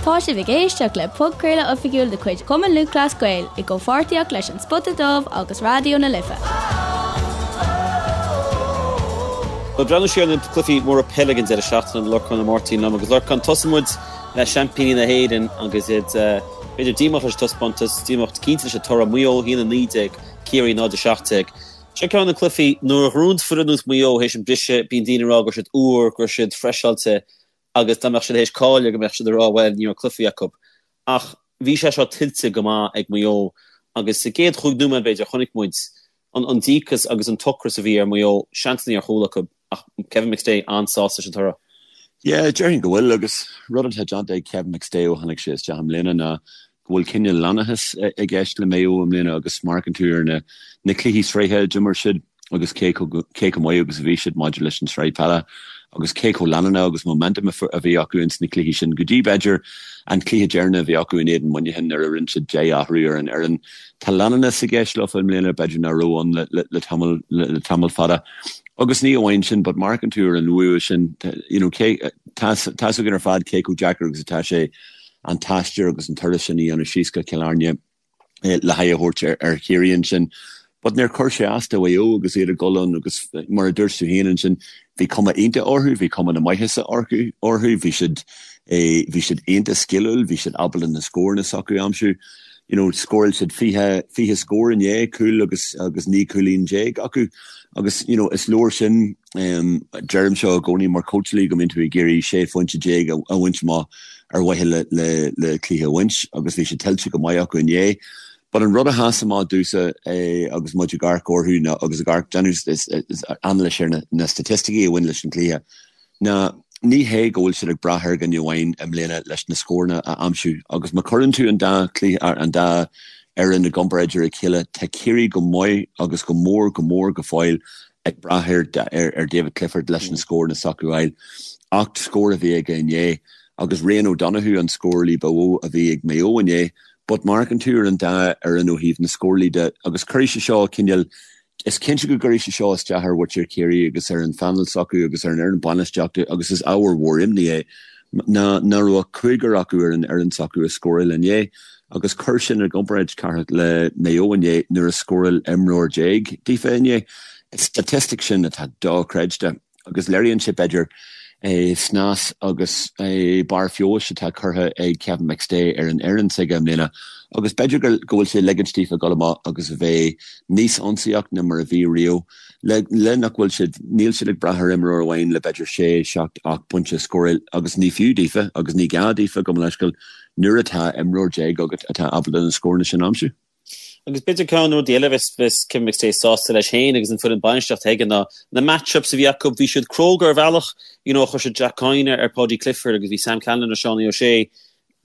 Tá sibh ag éisteacht le podchraoladh oifigiúil de chuid Chumann Lúthchleas Gael i gcomhpháirtíocht leis An Spota Dubh agus Raidió na Life. Ag breathnú siar ar na cluichí móra peile ag an deireadh seachtaine, Lorcán Ó Máirtín liom agus Lorcán, tosóidh muid le seaimpíní na hÉireann agus iad b'fhéidir díomách leis an taispeántas, díomách cinnte leis an toradh, Maigh Eo 1-19, Ciarraí 0-17. Seo ceann de na cluichí nuair a ghnóthaíonn foireann ar nós Maigh Eo théis an briseadh, bíonn daoine ag rá go raibh siad úr, go raibh siad freiseáilte agus dá mbeadh siad théis cailleadh go mbeadh siad ag rá bhuel ní raibh cluichí acu. Ach bhí sé seo tuillte go maith ag Maigh Eo agus sa gcéad chúig nóiméad b'fhéidir chonaic muid an díocas agus an t-ocras a bhí ar Mhaigh Eo, seansanna ar chúl acu ach Kevin McStay an-sásta leis an toradh. Yeah, déarfainn go bhfuil agus rud atá déanta ag Kevin McStay ó tháinig sé isteach i mbliana ná go bhfuil cineál leanúnachas i gceist le Maigh Eo i mbliana agus má amharcann tú ar na na cluichí sraithe a d'imir siad agus cé cé chomh maith agus a bhí siad maidir leis an tsraith peile agus cé chomh leanúnach agus momentum a bhí acu ins na cluichí sin go dtí b'fhéidir an cluiche deireanach a bhí acu in éadan Muineachán nuair a rinne siad 10 athrú ar an fhoireann. Tá leanúnachas i gceist leofa i mbliana b'fhéidir nach raibh ann le le tamall le tamall fada. Agus ní amháin sin but má amharcann tú ar an bhua sin you know cé tá tá's againn ar fad cé chomh deacair agus atá sé an t-aistear agus an turas sin a dhéanamh síos go Cill Airne le haghaidh a thabhairt ar Chiarraí ansin. But níor chuir sé as do Mhaigh Eo agus iad ag dul ann agus mar a dúirt tú féin ansin, bhí cuma iontach orthu, bhí cuma na maitheasa orthu, bhí siad bhí siad iontach sciliúil, bhí siad ábalta na scóranna s'acu a aimsiú. You know, scóráil siad 20, 20 scór inné, cúl agus agus 19 cúilín acu agus you know, is leor sin Deirim seo i gcónaí mar chóitseálaí go mbíonn tú ag iarraidh 16 phointe a bhaint amach ar mhaithe le cluiche a bhaint agus bhí sé tuillte go maith acu inné. But an rud a sheas amach domhsa agus muid ag amharc orthu ná agus ag amharc déanamh anailís ar na staitisticí a bhain leis an gcluiche ná ní hé go bhfuil siad ag brath ar dhuine amháin i mbliana leis na scóranna a aimsiú agus má chuireann tú an dá chluiche an dá fhoireann i gcomparáid ar a chéile tá Ciarraí go maith agus go mór go mór go fóill ag brath ar David Clifford leis na scóranna s'acu a fháil. 8 scór a bhí aige inné agus Rian O'Donoghue an scórálaí ba mhó a bhí ag Maigh Eo inné. But má amharcann tú ar an dá fhoireann ó thaobh na scórálaí de agus cuirfidh sé seo cineál, is cinnte go gcuirfidh sé seo isteach ar mhuintir Chiarraí agus ar an phainéal s'acu agus ar an fhoireann bainistíochta agus is ábhar mhór imní é ná nach raibh ach cúigear acu ar an fhoireann s'acu a scóráil inné. Agus cuir sin i gcomparáid, Cárthach, le Maigh Eo inné nuair a scóráil imreoir déag daofa inné. Is staitistic sin atá dochreidte agus léiríonn sé, b'fhéidir, snas agus barr feabhais atá curtha ag Kevin McStay ar an fhoireann s'aige i mbliana agus b'fhéidir go bhfuil sé ag ligint daofa dul amach agus a bheith níos ionsaíoch ná mar a bhí riamh. Le nach bhfuil siad, níl siad ag brath ar imreoir amháin le b'fhéidir sé, seacht, 8 bpointe a scóráil agus ní fiú daofa agus ní gá daofa, gabh mo leithscéal, nuair atá imreoir déag agat atá ábalta na scóranna sin a aimsiú. Agus b'fhéidir ceann de na rudaí eile a bheas Kevin McStay sásta leis féin agus an foireann bainistíochta aige ná na match-ups a bhí acu. Bhí siad cróga ar bhealach, you know, chuir siad Jack Coyne ar Paudie Clifford agus bhí Sam Callinan ar Seánie O'Shea.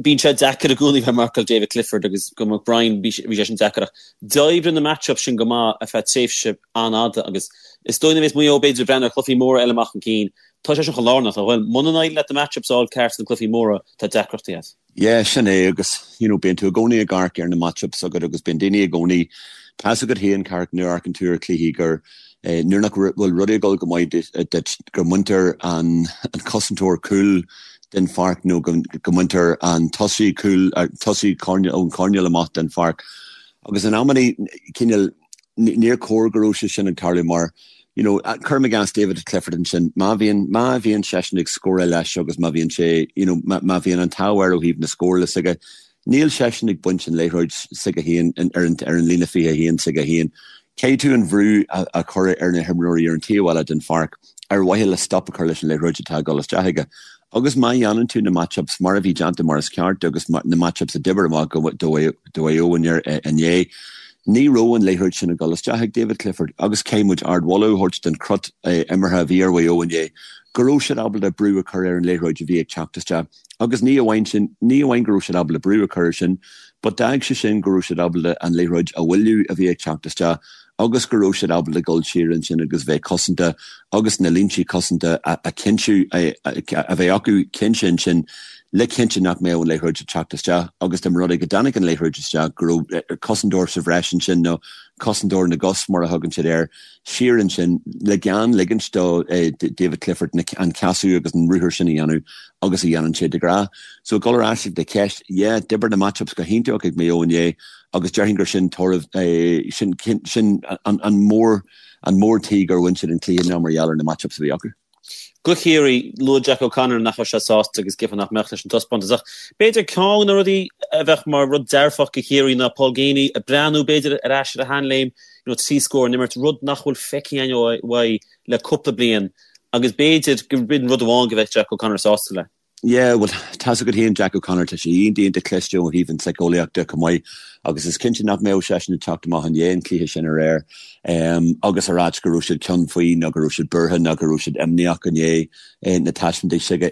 Bíonn sé deacair i gcónaí bheith ag marcáil David Clifford agus go McBrien bhí sé sin deacair ach d'oibrigh na match-ups sin go maith ar feadh tréimhse an-fhada agus is dóigh nuair a bheas Maigh Eo b'fhéidir ag breathnú ar chluichí móra eile amach chun cinn Tá sé sin chomh lárnach, nach bhfuil? Muna n-éiríonn leat na match-ups a fháil ceart sna cluichí móra, tá deacrachtaí agat. Yeah, sin é agus, you know, bíonn tú i gcónaí ag amharc ar na match-ups agat agus bíonn daoine i gcónaí, tá's agat féin, Cárthach, nuair a amharcann tú ar chluichí gur, eh, nuair nach bhfuil rudaí ag dul go maith duit, go mbaintear an, an cosantóir cúil den pháirc nó go, go mbaintear an tosaí cúil, tosaí coirnéal, ón choirnéal amach den pháirc. Agus in amannaí, cineál, níor chóir go raibh sé sin ag tarlú mar, you know, cuirim i gcás David Clifford ansin, má bhíonn, má bhíonn seisean ag scóráil leis agus má bhíonn sé, you know, má, má bhíonn an t-ádh air ó thaobh na scórála s'aige, níl seisean ag baint an liathróid s'aige féin ar an, ar an líne 21 s'aige féin. Caithfidh tú an bhrú a, a chur ar na himreoirí ar an taobh eile den pháirc ar mhaithe le stop a chur leis an liathróid atá ag dul isteach aige. Agus má dhéanann tú na match-ups mar a bhí déanta mar is ceart agus na match-ups a d'oibir amach do Mhaigh Eo inné, ní raibh an liathróid sin ag dul isteach ag David Clifford agus caithfidh muid ardmholadh a thabhairt don chrut imeartha a bhí ar Mhaigh Eo inné, go raibh siad ábalta brú a chur ar an liathróid a bhí ag teacht isteach. Agus ní amháin sin, ní amháin go raibh siad ábalta brú a chur air sin, but d'fhág sé sin go raibh siad ábalta an liathróid a mhoilliú a bhí ag teacht isteach agus go raibh siad ábalta dul siar ansin agus bheith cosanta agus na línte cosanta a chinntiú, a bheith acu cinnte ansin. le cinntiú nach mbeadh an liathróid ag teacht isteach agus dá mba rud é go dtáinig an liathróid isteach go raibh cosantóir sa bhreis ansin nó cosantóir na gcos mar a thugann siad air siar ansin le gan ligint do David Clifford an casadh agus an ruathar sin a dhéanamh agus a dhéanann sé de ghnáth. So ag dul ar ais ag do cheist, yeah, d'oibir na match-ups go hiontach ag Maigh Eo inné agus déarfainn gur sin toradh, sin sin an mór an mór tuige gur bhain siad an cluiche ná mar gheall ar na match-ups a bhí acu. Do Chiarraí, luaigh Jack O'Connor nach raibh sé sásta agus cheapfá nach mbeadh leis an taispeántas ach b'fhéidir ceann de na rudaí a bheadh mar rud dearfach do Chiarraí ná Paul Geaney ag breathnú b'fhéidir ar ais ar a sheanléim, you know, 3 scór an imirt, rud nach bhfuil feicthe againn uaidh le cúpla bliain agus b'fhéidir gur b'in rud amháin go bheadh Jack O'Connor sásta le. Yeah, bhuel, tá's agat féin Jack O'Connor, tá sé iontach iontach cliste ó thaobh an tsíceolaíocht de chomh maith agus is cinnte nach mbeadh seisean ag teacht amach i ndiaidh an chluiche sin aréir agus a ráit go raibh siad ceann faoi nó go raibh siad buartha nó go raibh siad imníoch i ndiaidh na taispeántais s'aige.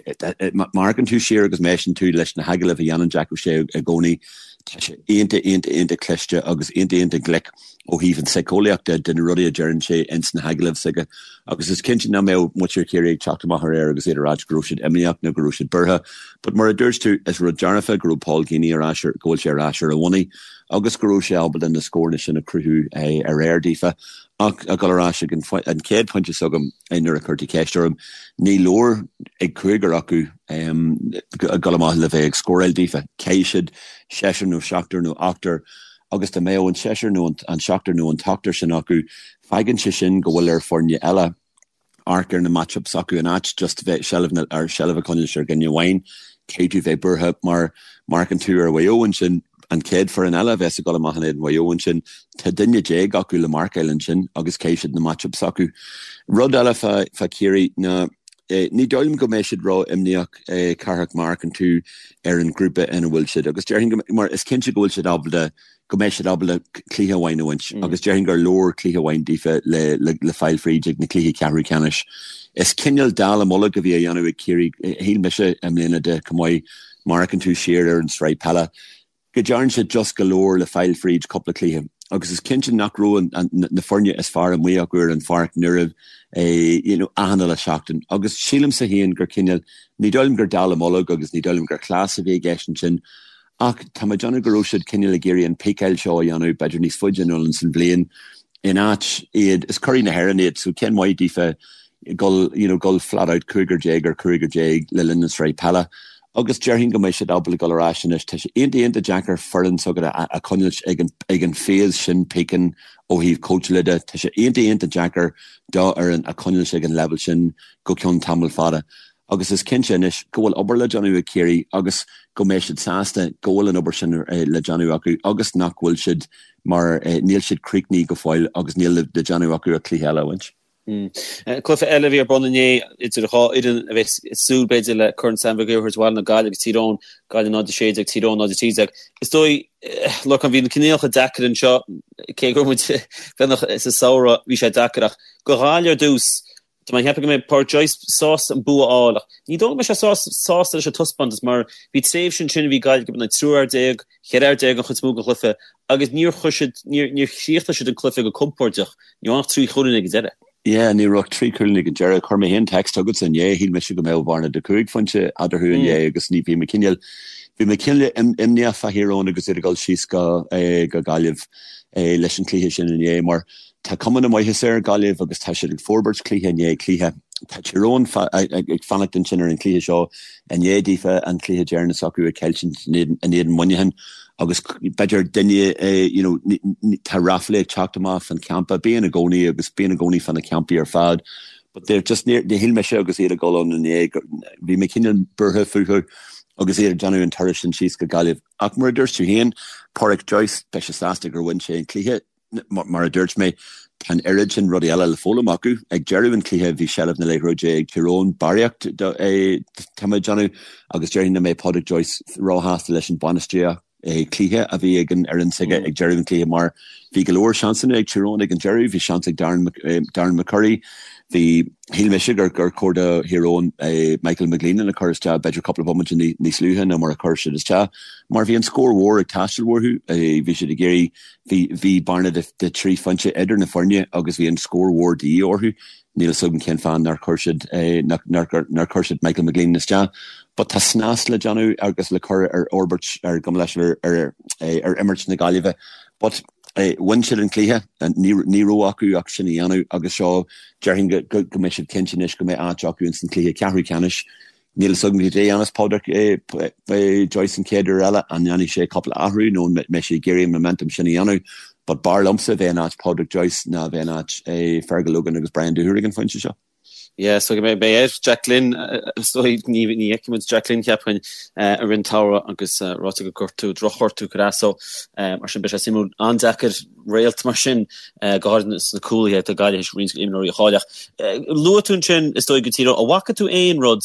Má amharcann tú siar agus má éisteann tú leis na hagallaimh a dhéanann Jack O'Shea i gcónaí, tá sé iontach iontach iontach cliste agus iontach iontach glic. ó thaobh an tsíceolaíocht de, de na rudaí a deireann sé ins na hagallaimh s'aige agus is cinnte nach mbeadh muintir Chiarraí ag teacht amach aréir agus iad ag ráit go raibh siad imníoch nó go raibh siad buartha. But mar a dúirt tú, is rud dearfa go raibh Paul Geaney ar ais ar, go bhfuil sé ar ais ar a bhonnaí agus go raibh sé ábalta na scóranna sin a chruthú aréir daofa. Ach ag dul ar ais ag an an chéad phointe s'agam nuair a chuir tú ceist orm, ní leor ag cúigear acu ag dul amach le bheith ag scóráil daofa. Caithfidh siad seisear nó seachtar nó ochtar agus dá mbeadh an seisear nó an seachtar nó an t-ochtar sin acu, fágann sé sin go bhfuil ar foirne eile amharc ar na match-ups s'acu in áit just bheith seilbh na, ar seilbh a choinneáil ar dhuine amháin. Caithfidh tú bheith buartha mar má amharcann tú ar Mhaigh Eo ansin, an chéad foireann eile a bheas ag dul amach in éadan Mhaigh Eo ansin, tá duine déag acu le marcáil ansin agus caithfidh siad na match-ups s'acu. Rud eile fá, fá Chiarraí ná ní dóigh liom go mbeidh siad ró-imníoch, Cárthach, má amharcann tú ar an ghrúpa ina bhfuil siad agus déarfainn go, mar is cinnte go bhfuil siad ábalta, go mbeidh siad ábalta cluiche amháin a bhaint agus déarfainn gur leor cluiche amháin daofa le, le, le fáil fríd ag na cluichí ceathrú ceannais. Is cineál dallamullóg a bhí á dhéanamh ag Ciarraí, shíl mise i mbliana de chomh maith, má amharcann tú siar ar an tsraith peile. go dtearn siad just go leor le fáil fríd cúpla cluiche agus is cinnte nach raibh na foirne is fearr amuigh acu ar an pháirc nuair a you know achan uile seachtain agus sílimse féin gur cineál ní dóigh liom gur dallamullóg agus ní dóigh liom gur cleas a bhí i gceist ansin ach tá mé ag déanamh go raibh siad cineál ag iarraidh an píceáil seo a dhéanamh b'fhéidir níos faide anonn san bhliain in áit iad is curaidh na hÉireann iad so cén mhaith daofa gul you know gul flat out 15 ar 15 le linn na sraith peile Agus déarfainn go mbeidh siad ábalta dul ar ais anois. Tá sé iontach iontach deacair foireann s'agat a choinneáilt ag an ag an phase sin píceann ó thaobh cóitseála de. Tá sé iontach iontach deacair do fhoireann a choinneáilt ag an leibhéal sin go ceann tamall fada. Agus is cinnte anois go bhfuil obair le déanamh ag Ciarraí agus go mbeidh siad sásta go bhfuil an obair sin le déanamh acu agus nach bhfuil siad mar níl siad críochnaithe go fóill agus níl le déanamh acu ach cluiche eile a bhaint. Cluiche eile a bhí ar bun inné idir dhá fhoireann a bheas ag súil b'fhéidir le Corn Sam Mhig Uidhir a thabhairt abhaile ná Gaillimh agus Tír Eoghain, Gaillimh 0-16, Tír Eoghain 0-13. Is dóigh, Lorcán, bhí na coinníollacha deacair anseo, cé go raibh muid beagnach sa samhradh, bhí sé deacair ach do Ghaillimh ar dtús, tá mé ag ceapadh go mbeidh Pádraic Joyce sásta an bua a fháil ach ní dóigh go mbeidh sé sásta leis an taispeántas mar bhí tréimhse ansin a bhí Gaillimh ag imirt in aghaidh triúr fhear déag, cheithre fhear déag an chuid is mó den chluiche agus níor chuir siad, níor, níor chríochnaigh siad an cluiche go compordach. Ní raibh ach 3 chúilín ag an deireadh. Yeah, ní raibh ach 3 chúilín ag an deireadh. Chuir mé féin text chugatsa inné, shíl mise go mbeadh bearna de 5 phointe eadarthu inné agus ní, bhí mé cineál, bhí mé cineál imníoch fá Thír Eoghain agus iad ag dul síos go, go Gaillimh leis an chluiche sin inné mar tá cuma na maitheasa ar Ghaillimh agus tá siad ag forbairt cluiche i ndiaidh cluiche. Tá Tír Eoghain ag fanacht ansin ar an chluiche seo i ndiaidh daofa an cluiche deireanach s'acu a chailliúint in éadan Muineacháin agus b'fhéidir duine you know tá ráflaí ag teacht amach fan champa, bíonn i gcónaí agus bíonn i gcónaí fan na campaí ar fad but they're just níor shíl mise agus iad ag dul ann inné bhí mé cineál buartha fúthu agus iad ag déanamh an turas sin síos go Gaillimh. Ach mar a dúirt tú féin, Pádraic Joyce, beidh sé sásta gur bhain sé an cluiche. Mar a dúirt mé, tá an oiread sin rudaí eile le foghlaim acu. Ag deireadh an chluiche bhí seilbh na liathróide ag Tír Eoghain, barraíocht tá mé ag déanamh, agus déarfainn nach mbeidh Pádraic Joyce róshásta leis an bainistíocht cluiche a bhí ag an fhoireann s'aige ag deireadh an chluiche mar bhí go leor seansanna ag Tír Eoghain ag an deireadh, bhí seans ag Darren Darren McCurry, bhí, shíl mise gur gur chóir do Thír Eoghain Michael McGleenan a chur isteach b'fhéidir cúpla bomaite níos luaithe ná mar a chuir siad isteach mar bhí an scór mhór ag teastáil uathu, bhí siad ag iarraidh Bhí, bhí bearna de, de thrí phointe idir na foirne agus bhí an scór mhór de dhíth orthu. Níl a fhios agam cén fáth nár chuir siad, nár, nár chuir siad Michael McGleenan isteach. But tá snas le déanamh agus le cur ar fhorbairt ar gabh mo leithscéal ar ar imirt na Gaillimhe. But bhain siad an cluiche, ní raibh acu ach sin a dhéanamh agus seo déarfainn go go mbeidh siad cinnte anois go mbeidh áit acu ins an cluiche ceathrú ceannais. Níl fhios agam cad é a dhéanfas Pádraic Joyce an chéad uair eile, an ndéanfaidh sé cúpla athrú nó an mbeidh sé ag iarraidh an momentum sin a dhéanamh. But b'fhearr liomsa bheith in áit Pádraic Joyce ná bheith in áit Fergal Logan agus Brian Dooher ag an phointe seo. Yeah, so go mbeidh beidh air Jack Glynn, is dóigh ní ní fheicfidh muid Jack Glynn cheapfainn i rith an tsamhraidh agus ráite gur gortú drochghortú cur as so mar sin beidh sé suimiúil an-deacair réalt mar sin go háirithe sna cúlaithe do Gaillimh théis roinnt imreoirí a chailleadh. Luaigh tú ansin is dóigh go Tír Eoghain, an bhfaca tú aon rud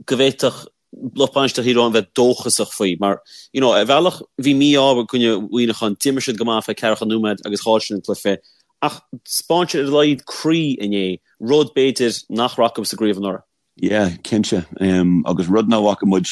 go bhféadfadh lucht bainistíochta Thír Eoghain bheith dóchasach faoi mar you know ar bhealach bhí mí-ádh i gcoinne Mhuineacháin, d'imir siad go maith feadh ceathracha nóiméad agus chaill siad an cluiche ach 'spáin siad ar a laghad croí inné, rud b'fhéidir nach raibh acu sa gcraobh anuraidh. Yeah, cinnte. Agus rud nach bhfaca muid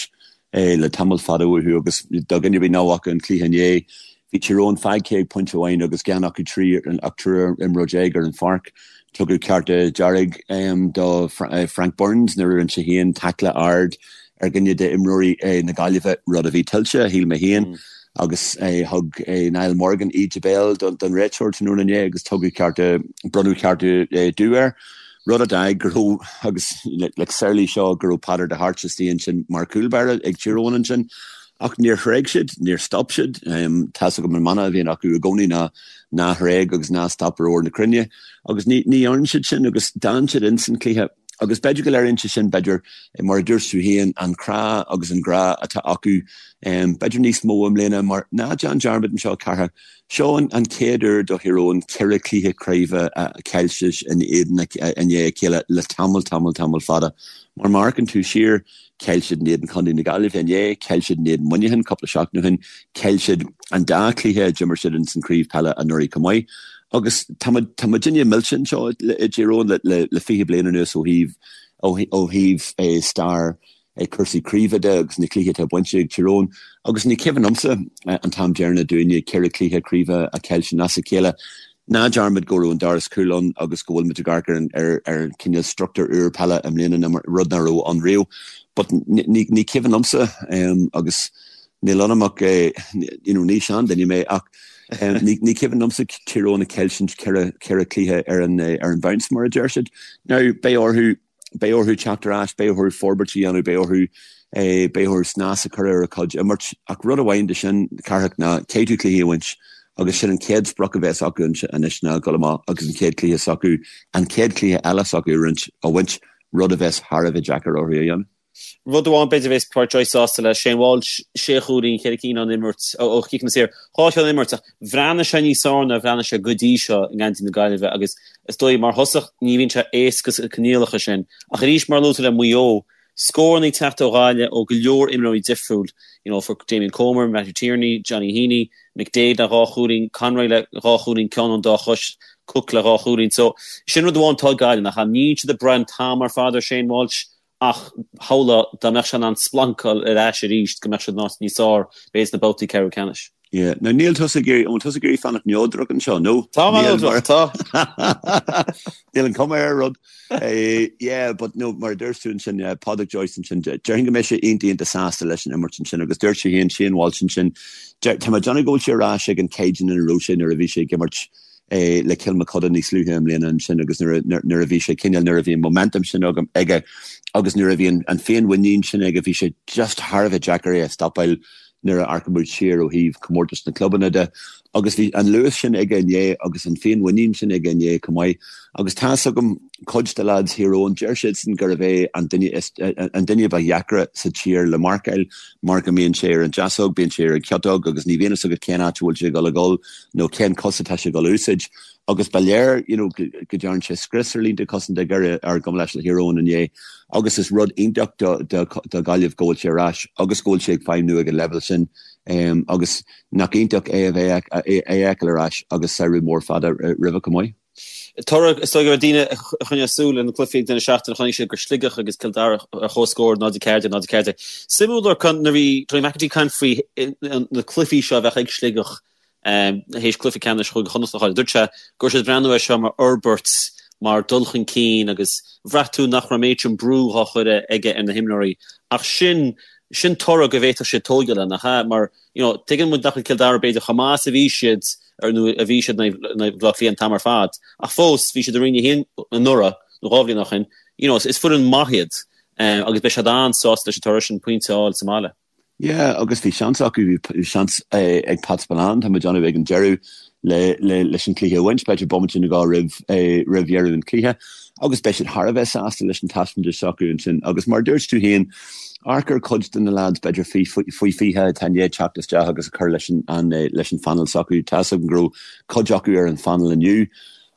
le tamall fada uathu agus do dhuine ar bith nach bhfaca an cluiche inné, bhí Tír Eoghain fágtha ag pointe amháin agus gan acu trí ach triúr imreoir déag ar an pháirc. Tugadh cárta dearg do Frank Burns nuair a rinne sé féin taicle ard ar dhuine d'imreoirí na Gaillimhe, rud a bhí tuillte, shíl mé féin, agus thug Niall Morgan íde béil don réiteoir tráthnóna inné agus tugadh cárta, bronnadh cárta dubh air. Rud a d'fhág go raibh, agus like samhlaigh seo, go raibh Peadar de hAirt istigh ansin mar chúl báire ag Tír Eoghain ansin. Ach níor thréig siad, níor stop siad. Tá's agam an mana a bhíonn acu i gcónaí ná ná thréig agus ná stop ar ór na cruinne. Agus ní ní dhearn siad sin agus d'fhan siad ins an cluiche. Agus b'fhéidir go léiríonn sé sin, b'fhéidir, mar a dúirt tú féin, an crá agus an grá atá acu, b'fhéidir níos mó i mbliana mar ná déan dearmad anseo, Cárthach, Seo an chéad uair do Thír Eoghain 4 chluiche craoibhe a chaillte in éadan i ndiaidh a chéile le tamall, tamall, tamall fada. Mar má amharcann tú siar, chaill siad in éadan Chontae na Gaillimhe inné, chaill siad in éadan Muineacháin cúpla seachtain ó shin, chaill siad an dá chluiche a d'imir siad ins an chraobh peile anuraidh chomh maith. Agus tá muid, tá muidinne millte anseo i dTír Eoghain le, le 20 bliain anuas ó thaobh, ó thaobh stair cúrsaí craoibhe de agus na cluichí atá bainte ag Tír Eoghain agus ní cuimhin liomsa an t-am deireanach dúinne 4 chluiche craoibhe a chaillte as a chéile. Ná dearmad go raibh an doras cúil ann agus go bhfuil muid ag amharc ar ar cineál struchtúr úr peile i mbliana rud nach raibh ann riamh. But ní ní cuimhin liomsa agus níl ionam ach you know ní seanduine mé ach ní ní cuimhin liomsa Tír Eoghain ag caillteaint 4 chluiche ar an ar an bounce mar a deir siad. Now beidh orthu Beidh orthu teacht ar ais, beidh orthu forbairt a dhéanamh, beidh orthu, beidh orthu snas a chur ar a gcuid imirt. Ach rud amháin de sin, Cárthach, ná caithfidh tú cluichí a bhaint agus sin an chéad sprioc a bheas acu anois ná dul amach agus an chéad cluiche s'acu, an chéad chluiche eile s'acu a roinnt, a bhaint, rud a bheas thar a bheith deacair orthu a dhéanamh. Rud amháin b'fhéidir a bheas Pádraic Joyce sásta leis, Shane Walsh, sé chúilín, 4 cinn ón imirt, ó chiceanna saor, 2 cheann ón imirt ach bhreathnaigh sé níos fearr ná a bhreathnaigh sé go dtí seo i ngeansaí na Gaillimhe agus is dóigh mar thosach ní bhíonn sé éasca sna coinníollacha sin ach arís mar a luaigh tú le Maigh Eo, scóranna ag teacht ó Ghaillimh ó go leor imreoirí difriúil, you know, for Damien Comer, Matthew Tierney, Johnny Heaney, McDaid le dhá chúilín, Conroy le dhá chúilín, ceann ón dá chois, Cooke le dhá chúilín. So sin rud amháin atá ag Gaillimh nach ea? Níl siad ag brath an t-am ar fad ar Shane Walsh Ach shamhlófá dá mbeadh sé in ann splancáil ar ais arís go mbeadh siad in áit níos fearr, b'fhéidir sna babhtaí ceathrú ceannais. Yeah. Now níl tusa ag iarraidh, an bhfuil tusa ag iarraidh fanacht neodrach anseo, nó? Tá mé neodrach, tá. Níl an cuma ar an rud. Yeah, but no, mar a dúirt tú ansin, yeah, Pádraic Joyce ansin, déarfainn go mbeidh sé iontach iontach sásta leis an imirt ansin agus dúirt sé féin, Shane Walsh ansin, tá mé ag déanamh go bhfuil sé ar ais ag an caighdeán ina raibh sé nuair a bhí sé ag imirt le Cill Mochuda níos luaithe i mbliana ansin agus nuair a bhí sé cineál, nuair a bhí an momentum sin aige agus nuair a bhí an féinmhuinín sin aige, bhí sé just thar a bheith deacair é a stopáil nuair a amharcann muid siar ó thaobh comórtas na clubanna de. Agus bhí an luas sin aige inné agus an féinmhuinín sin aige inné chomh maith. Agus tá's agam cuid de lads Thír Eoghain, deir siadsan gurbh é an duine is, an duine ba dheacra sa tír le marcáil mar go mbíonn sé ar an deasóg, bíonn sé ar an chiotóg agus ní bhíonn fhios agat cén áit a bhfuil sé ag dul a dhul. nó cén cos atá sé ag dul a úsáid agus ba léir you know go dtearn sé scrios ar línte cosanta Dhoire ar gabh mo leithscéal Thír Eoghain inné agus is rud iontach do do do Ghaillimh go bhfuil sé ar ais agus go bhfuil sé ag feidhmniú ag an leibhéal sin um, agus nach iontach é a bheith é a fheiceáil ar ais agus samhradh mór fada roimhe chomh maith. Toradh, is dóigh go raibh daoine a choinnigh súil ar na cluichí ag deireadh seachtaine, chonaic siad gur Sligeach agus Cill Dara ar comhscór 0-14, 0-14. Suimiúil Lorcán nuair a bhí Tony McEntee ag caint faoi na cluichí seo a bheadh ag Sligeach théis cluiche ceannais Chúige Chonnacht a chailleadh. Dúirt sé go raibh siad ag breathnú air seo mar fhorbairt. mar dul chun cinn agus bhraith tú nach raibh an méid sin brú dhá chur aige ar na himreoirí ach sin sin toradh go bhféadfadh siad tógáil air, nach ea? Mar you know tuigeann muid nach bhfuil Cill Dara b'fhéidir chomh maith is a bhí siad ar nó a bhí siad in aghaidh Bhaile Átha Cliath an t-am ar fad ach fós bhí siad i Roinn 1 anuraidh nó 2 bhliain ó shin you know is foireann maith iad agus beidh siad an-sásta leis an toradh sin pointe a fháil sa mbaile. Yeah, agus bhí seans acu, bhí seans ag Pat Spillane, tá mé ag déanamh ag an deireadh le, le, leis an cluiche a bhaint, b'fhéidir bomaite nó dhó roimh, roimh dheireadh an chluiche, agus beidh siad thar a bheith sásta leis an taispeántas s'acu ansin. Agus mar a dúirt tú féin, amharc ar cuid de na lads, b'fhéidir faoi, faoi 20 atá i ndiaidh teacht isteach agus a chur leis an, an, leis an phainéal s'acu. Tá 'fhios agam go raibh cuid acu ar an phainéal inniu.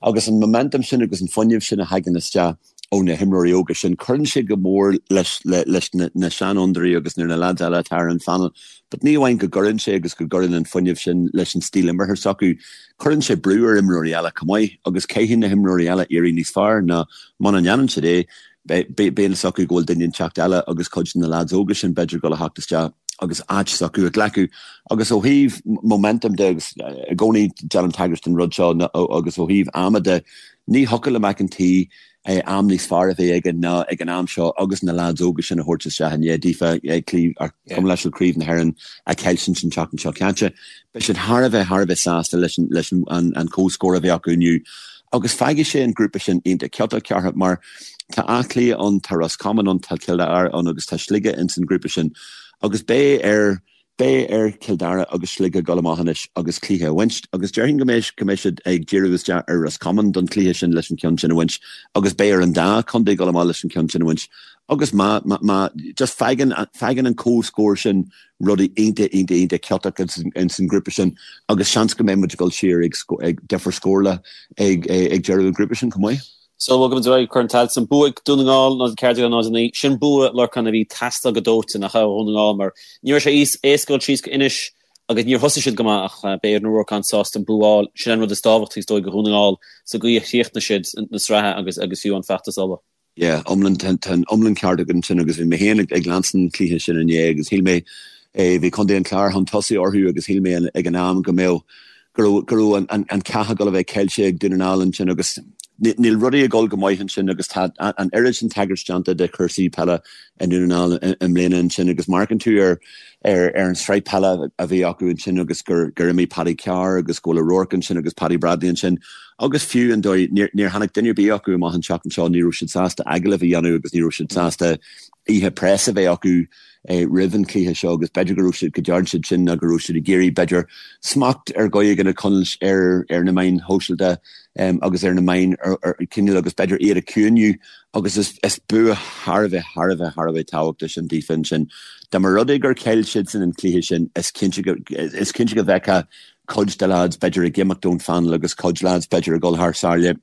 Agus an momentum sin agus an fuinneamh sin a thagann isteach, ó na himreoirí óga sin. Cuireann sé go mór leis leis na seanfhondúirí agus na lads eile atá ar an phainéal. But ní amháin go gcuireann sé agus go gcuireann an fuinneamh sin leis an stíl imeartha s'acu, cuireann sé brú ar imreoirí eile chomh maith agus caithfidh na himreoirí eile éirí níos fearr ná muna ndéanann siad é, beidh a fhios acu go bhfuil duine inteacht eile agus cuid de na lads óga sin b'fhéidir ag dul a theacht isteach agus áit s'acu a ghlacadh. Agus ó thaobh momentum de agus i gcónaí déanaim tagairt don rud seo agus ó thaobh ama de, Ní thiocfadh le McEntee am níos fearr a bheith aige ná ag an am seo agus na leaids óga sin a thabhairt isteach i ndiaidh daofa gabh mo leithscéal Craobh na hÉireann a chailliúint an tseachtain seo caite. Beidh siad thar a bheith thar a bheith sásta leis an leis an an comhscór a bhí acu inniu agus fágfaidh sé an grúpa sin iontach ciotach ceartha mar tá Áth Cliath ann, tá Ros Comáin ann, tá Cill Dara ann agus tá Sligeach ins an grúpa sin agus beidh ar Beidh ar Chill Dara agus Sligeach dul amach anois agus cluiche a bhaint agus déarfainn go mbeidh go mbeidh siad ag díriú isteach ar Ros Comáin don chluiche sin leis an ceann sin a bhaint agus beidh ar an dá chontae dul amach leis an ceann sin a bhaint agus má má má just fágann fágann an comhscór sin rudaí iontach iontach iontach ciotach ins an grúpa sin agus seans go mbeidh muid ag dul siar ag ag difear scórála ag ag deireadh an ghrúpa sin chomh maith. So bhogfaidh muid ar aghaidh Corn Tailteann. Bua ag Dún na nGall 0-14 0-9. Sin bua Lorcán a bhí ag teastáil go dóite nach ea ó Dhún na nGall mar ní raibh sé éasca dul síos go Inis agus níor thosaigh siad go maith ach beidh Aaron O'Rourke an-sásta an bua a fháil. Sin an rud is tábhachtaí is dóigh do Dhún na nGall sa gcaoi a chríochnaigh siad na sraithe agus agus fiú an feachtas Uladh. Yeah, iomlán, tá an iomlán ceart agat ansin agus bhí mé féin ag leanstan an chluiche sin inné agus shíl mé, bhí Contae an Chláir chun tosaigh orthu agus shíl mé ag an am go mbeadh go raibh go raibh an an cath ag dul a bheith caillte ag Dún na nGall ansin agus níl rudaí ag dul go maith ansin agus tá an oiread sin tagairt déanta de chúrsaí peile i nDún na nGall i mbliana ansin agus má amharcann tú ar ar ar an sraith peile a bhí acu ansin agus gur gur imigh Paddy Carr agus go bhfuil O'Rourke ansin agus Paddy Bradley ansin agus fiú an dóigh níor níor tháinig duine ar bith acu amach an tseachtain seo ní raibh siad sásta agallamh a dhéanamh agus ní raibh siad sásta oíche press a bheith acu roimh an chluiche seo agus b'fhéidir go raibh siad, go dtearn siad sin nó go raibh siad ag iarraidh, b'fhéidir, smacht ar dhóigh éigin a choinneáil ar ar na meáin shóisialta agus ar na meáin cineál agus b'fhéidir iad a chiúiniú agus is is bua thar a bheith, thar a bheith, thar a bheith tábhachtach sin daofa ansin. Dá mba rud é gur chaill siadsan an cluiche sin, is cinnte go, is cinnte go bhfeicfeá cuid de lads b'fhéidir ag imeacht ón phainéal agus cuid lads b'fhéidir ag dul thar sáile.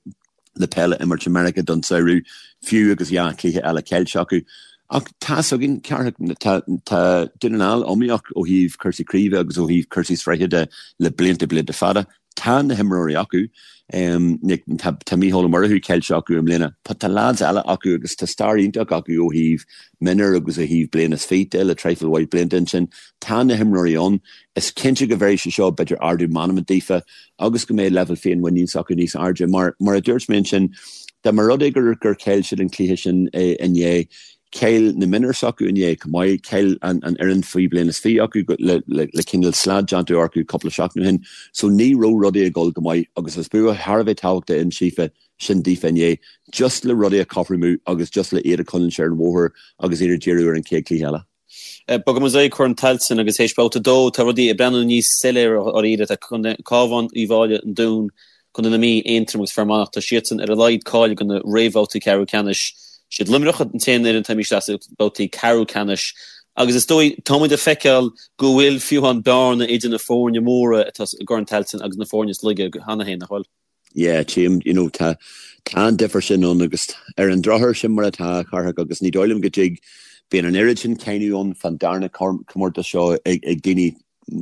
le peil a imirt i Meiriceá don samhradh, fiú agus dhá chluiche eile caillte acu. Ach tá's againn, Cárthach, tá tá Dún na nGall iomaíoch ó thaobh cúrsaí craoibhe agus ó thaobh cúrsaí sraithe de le blianta blianta fada. Tá na himreoirí acu. Tá tá Mícheál Ó Murchú caillte acu i mbliana. But tá lads eile acu agus tá stair iontach acu ó thaobh mionúir agus ó thaobh bliain is fiche de le traidhfil mhaith blianta ansin. Tá na himreoirí ann. Is cinnte go bhféadfadh sé seo b'fhéidir ardú meanman daofa agus go mbeidh leibhéal féinmhuinín s'acu níos airde. Mar mar a dúirt mé ansin, dá mba rud é gur gur chaill siad an cluiche sin inné, chaill na mionúir s'acu inné chomh maith, chaill an an fhoireann faoi bliain is 20 acu le le le cineál slad déanta orthu cúpla seachtain ó shin. So ní raibh rudaí ag dul go maith agus is bua thar a bheith tábhachtach in síofa sin daofa inné, just le rudaí a chothromú agus just le iad a choinneáil ar an bhóthar agus iad ag díriú ar an chéad cluiche eile. Bogfaidh muid ar aghaidh Corn Tailteann agus théis babhta 2 tá rudaí ag breathnú níos soiléire dháiríre. Tá Cabhán, Uíbh Fhailí, An Dún, Contae na Mí, Aontroim agus Fear Manach, tá siadsan ar a laghad cáilithe do na réamhbhabhtaí ceathrú ceannais. Siad Luimneach an t-aon fhoireann atá imithe isteach sna babhtaí ceathrú ceannais agus is dóigh tá muid ag feiceáil go bhfuil fiú amháin bearna idir na foirne móra atá i gCorn Tailteann agus na foirne is laige cheana féin, nach bhfuil? Yeah, tchím, you know, tá, tá an difear sin ann agus ar an drochuair sin mar atá, a Chárthaigh, agus ní dóigh liom go dtig, bíonn an oiread sin cáineadh ann fán darna comórtas seo ag, ag daoine,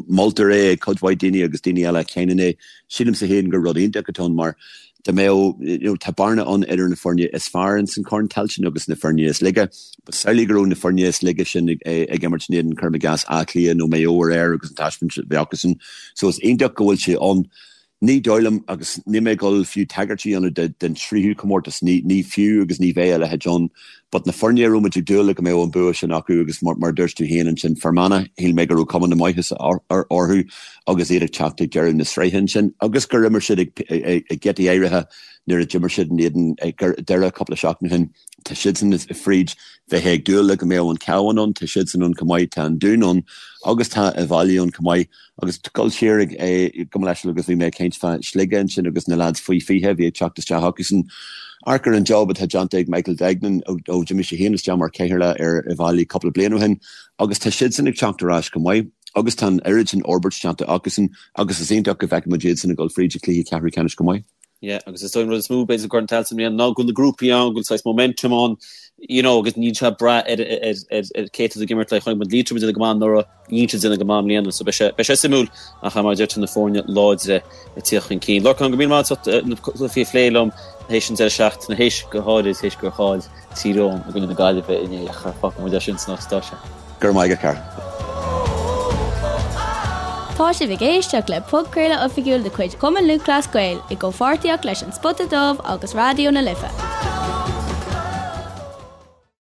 moltar é ag cuid mhaith daoine agus daoine eile a cháineann é. Sílimse féin gur rud iontach atá ann mar dá mbeadh, you know, tá bearna ann idir na foirne is fearr ins an Chorn Tailteann agus na foirne is laige. But samhlaigh go raibh na foirne is laige sin ag, ag imirt in éadan, cuirim i gcás, Áth Cliath nó Maigh Eo aréir agus an taispeáint a bhí acusan. So is iontach go bhfuil sé ann. Ní dóigh liom, agus níl mé ag dul fiú tagairt a dhéanamh den tríú comórtas, ní fiú agus ní bheidh a leithéid ann, but na foirne a raibh muid ag dúil le go mbeadh an bua sin acu agus mar a dúirt tú féin ansin, Fear Manach, shíl mé go raibh cuma na maitheasa orthu agus iad ag teacht ag deireadh na sraithe ansin agus gur imir siad ag giotaí áirithe nuair a d'imir siad in éadan Doire cúpla seachtain ó shin. Tá siadsan fríd, bheifeá ag dúil le go mbeadh an Cabhán ann, tá siadsan ann chomh maith, tá an Dún ann agus tá Uíbh Fhailí ann chomh maith. Agus dul siar ag gabh mo leithscéal agus bhí mé ag caint fá Sligeach ansin agus na lads faoi 20 a bhí ag teacht isteach acusan. Amharc ar an job atá déanta ag Michael Duignan ó d'imigh sé féin isteach mar chathaoirleach ar Uíbh Fhailí cúpla bliain ó shin agus tá siadsan ag teacht ar ais chomh maith agus tá an oiread sin fhorbairt déanta acusan agus is iontach go bhfeicfidh muid iadsan ag dul fríd an cluiche ceathrú ceannais chomh maith. Yeah, agus is dóigh an rud is mó b'fhéidir Corn Tailteann i mbliana ná go bhfuil na grúpaí ann, go bhfuil saghas momentum ann, you know, agus níl sé ag brath ar ar ar ar cé atá ag imirt le chonaic muid Liatroim ag déanamh go maith anuraidh, níl siad ag déanamh go maith i mbliana, so beidh sé beidh sé suimiúil ach mar a deir tú na foirne láidre ag tíocht chun cinn. Lorcán, go míle maith agat as ucht na cluichí a phlé liom théis an deireadh seachtaine, théis go háirid théis gur chaill Tír Eoghain i gcoinne na Gaillimhe inné ach fágfaidh muid é sin san áit atá sé. Go raibh maith agat, a Chara. Tá sibh ag éisteacht le podchraoladh oifigiúil de chuid Chumann Lúthchleas Gael i gcomhpháirtíocht leis An Spota Dubh agus Raidió na Life.